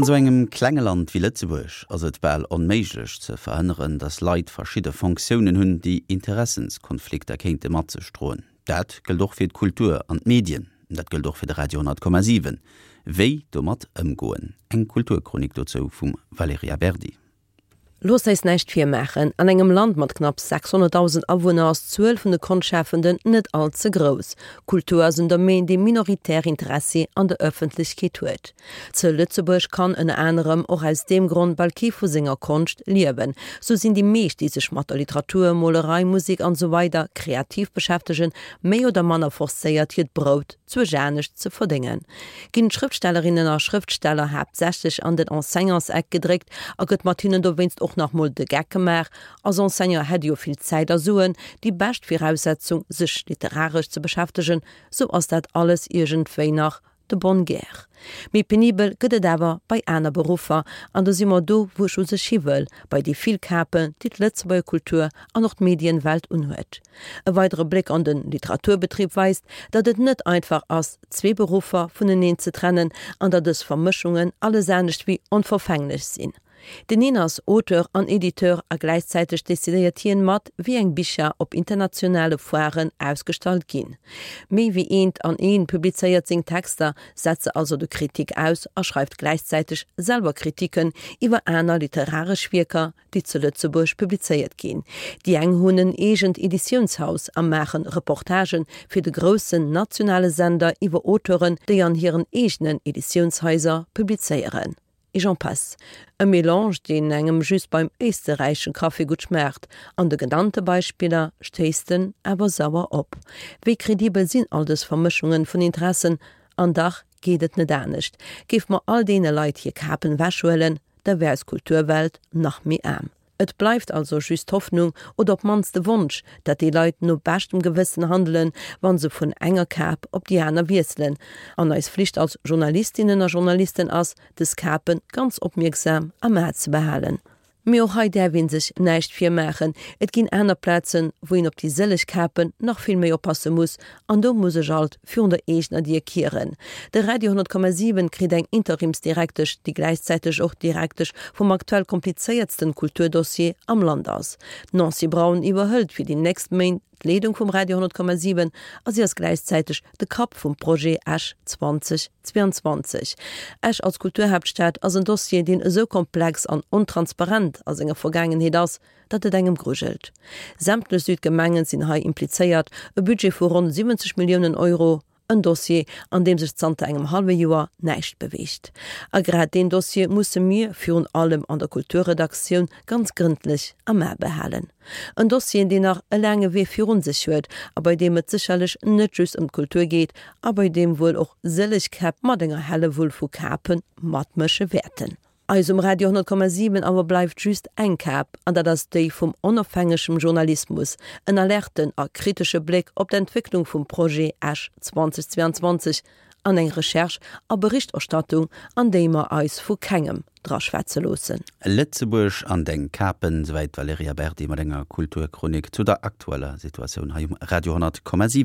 An esou engem klenge Land wéi Lëtzebuerg ass et bal onméiglech ze verhënneren, datt Leit verschidde Fonctiounen hunn, déi Interessenskonflikter kéinte mat sech droen. Dat gëllt och fir d'Kultur an d'Medien. Dat gëllt och fir de Radio 10,7. Wéi domat ëmgoen? Eng Kulturchronik dozou vum Valerija Berdi. Loosst eis näischt virmaachen, An engem Land mat knapps 600.000 Awunner ass d'Zuel vun de Konschtschafenden net all ze grouss. Kultur ass en Domaine, dee minoritär Interessi an der Ëffentlechkeet huet. Zu Lëtzebuerg kann ënner anerem och aus deem Grond bal kee vu senger Konscht liewen. Sou sinn déi meescht, déi sech mat der Literatur, Molerei, Musek an esou weider kreativ beschäftegen, méi oder manner forcéiert hiert Brout zwuesch anescht ze verdéngen, ginn d'Schrëftstellerinnen a Schrëftsteller haaptsächlech an den Enseignantseck gedréckt a gëtt mat hinnen dowéinst och nach mol de Geck gemaach, als Enseignant hätt ee jo vill Zäit a Suen, déi bescht Viraussetzung sech literaresch ze beschäftegen, sou ass dat alles iergendwéi nach de bonne guerre. Méi penibel gëtt et awer bei aner Beruffer, an do si mer do wou ech u sech hi wëll, bei déi vill Kapen, déi d'Lëtzebuerger Kultur an och d'Medienwelt unhuet. E weidere Bléck an de Literaturbetrib weist, datt et net einfach ass, zwee Beruffer vuneneen ze trennen an datt dës Vermëschungen alles anescht wéi onverfänglech sinn. Deen een ass Auteur an Editeur a gläichzäiteg decidéiert hien mat, wéi eng Bicher op internationale Foiren ausgestallt ginn. Méi wéi eent an een publizéiert seng Texter, setzt se also de Kritik aus a schreift gläichzäiteg selwer Kritiken iwwer aner literaresch Wierker, déi zu Lëtzebuerg publizéiert ginn. Déi eng hunn en eegent Editiounshaus a maachen Reportagen fir de groussen nationale Sender iwwer Auteuren, déi an hiren eegenen Editiounshaiser publizéieren. Et j'en passe. E Melange, deen engem just beim éisterräichschen Café gutt schmaacht. An de genannte Beispiller stéisst en awer sauer op. Wéi kredibel sinn all dës Vermëschungen vun Interessen? An dach geet et net anescht. Géife mer all deene Leit hir Kapen wechhuelen, da wär eis Kulturwelt nach méi aarm. Et bleift also just d'Hoffnung, oder op d'mannst de Wonsch, dat déi Leit no beschtem Gewëssen handelen, wa se vun enger Kap op déi aner wiesselen. An eis Flicht als Journalistinnen a Journalisten ass, dës Kape ganz opmierksam am A ze behalen. Mee och hei däerf ee sech näischt virmaachen, et ginn aner Plazen, wou een op déi sëlleg Kapen nach vill méi oppasse muss, An do muss ech alt virun der eegener Dier kieren. De Radio 10,7 kritt eng Interimsdirektesch, déi gläichzäiteg och Direktesch vum aktuell komplizéiertsten Kulturdossier am Land ass. D'Nancy Braun iwwerhëlt fir déi nächst Méint d'Leedung vum Radio 10,7 a si ass gläichzäiteg de Kapp vum Projet Esch 2022. Esch als Kulturhaaptstad ass en Dossier, deen esou komplex an ontransparent a senger Vergaangenheet ass, datt et engem grujelt. Sämtlech Südgemengen sinn hei implizéiert, e Budget vu ronn 70 Milliounen Euro, en Dossier, an deem sech zanter engem hallwe Joer näischt beweegt. A grad deen Dossier musse mir, virun allem an der Kulturredaktioun, ganz grëndlech am A behalen. En Dossier, deen nach e laange Wee virun sech huet a bei deem et sécherlech net just ëm d'Kultur geet a bei deem wuel och sëlleg Käpp mat enger Hellewull vu Kape matmësche wäerten. Eis um Radio 10,7 awer bleift just eng Kap, an dat ass déi vum onofhängegem Journalismus, en alerten a kritesche Bléck op d'Entwécklung vum Projet Esch 2022 an eng Recherche a Berichterstattung, an déi mer eis vu kengem draschwätze loossen. Lëtzebuerg an deng Kapen, souwäit d'Valerija Berdi mat enger Kulturchronik zu der aktueller Situatioun hei um Radio 10,7.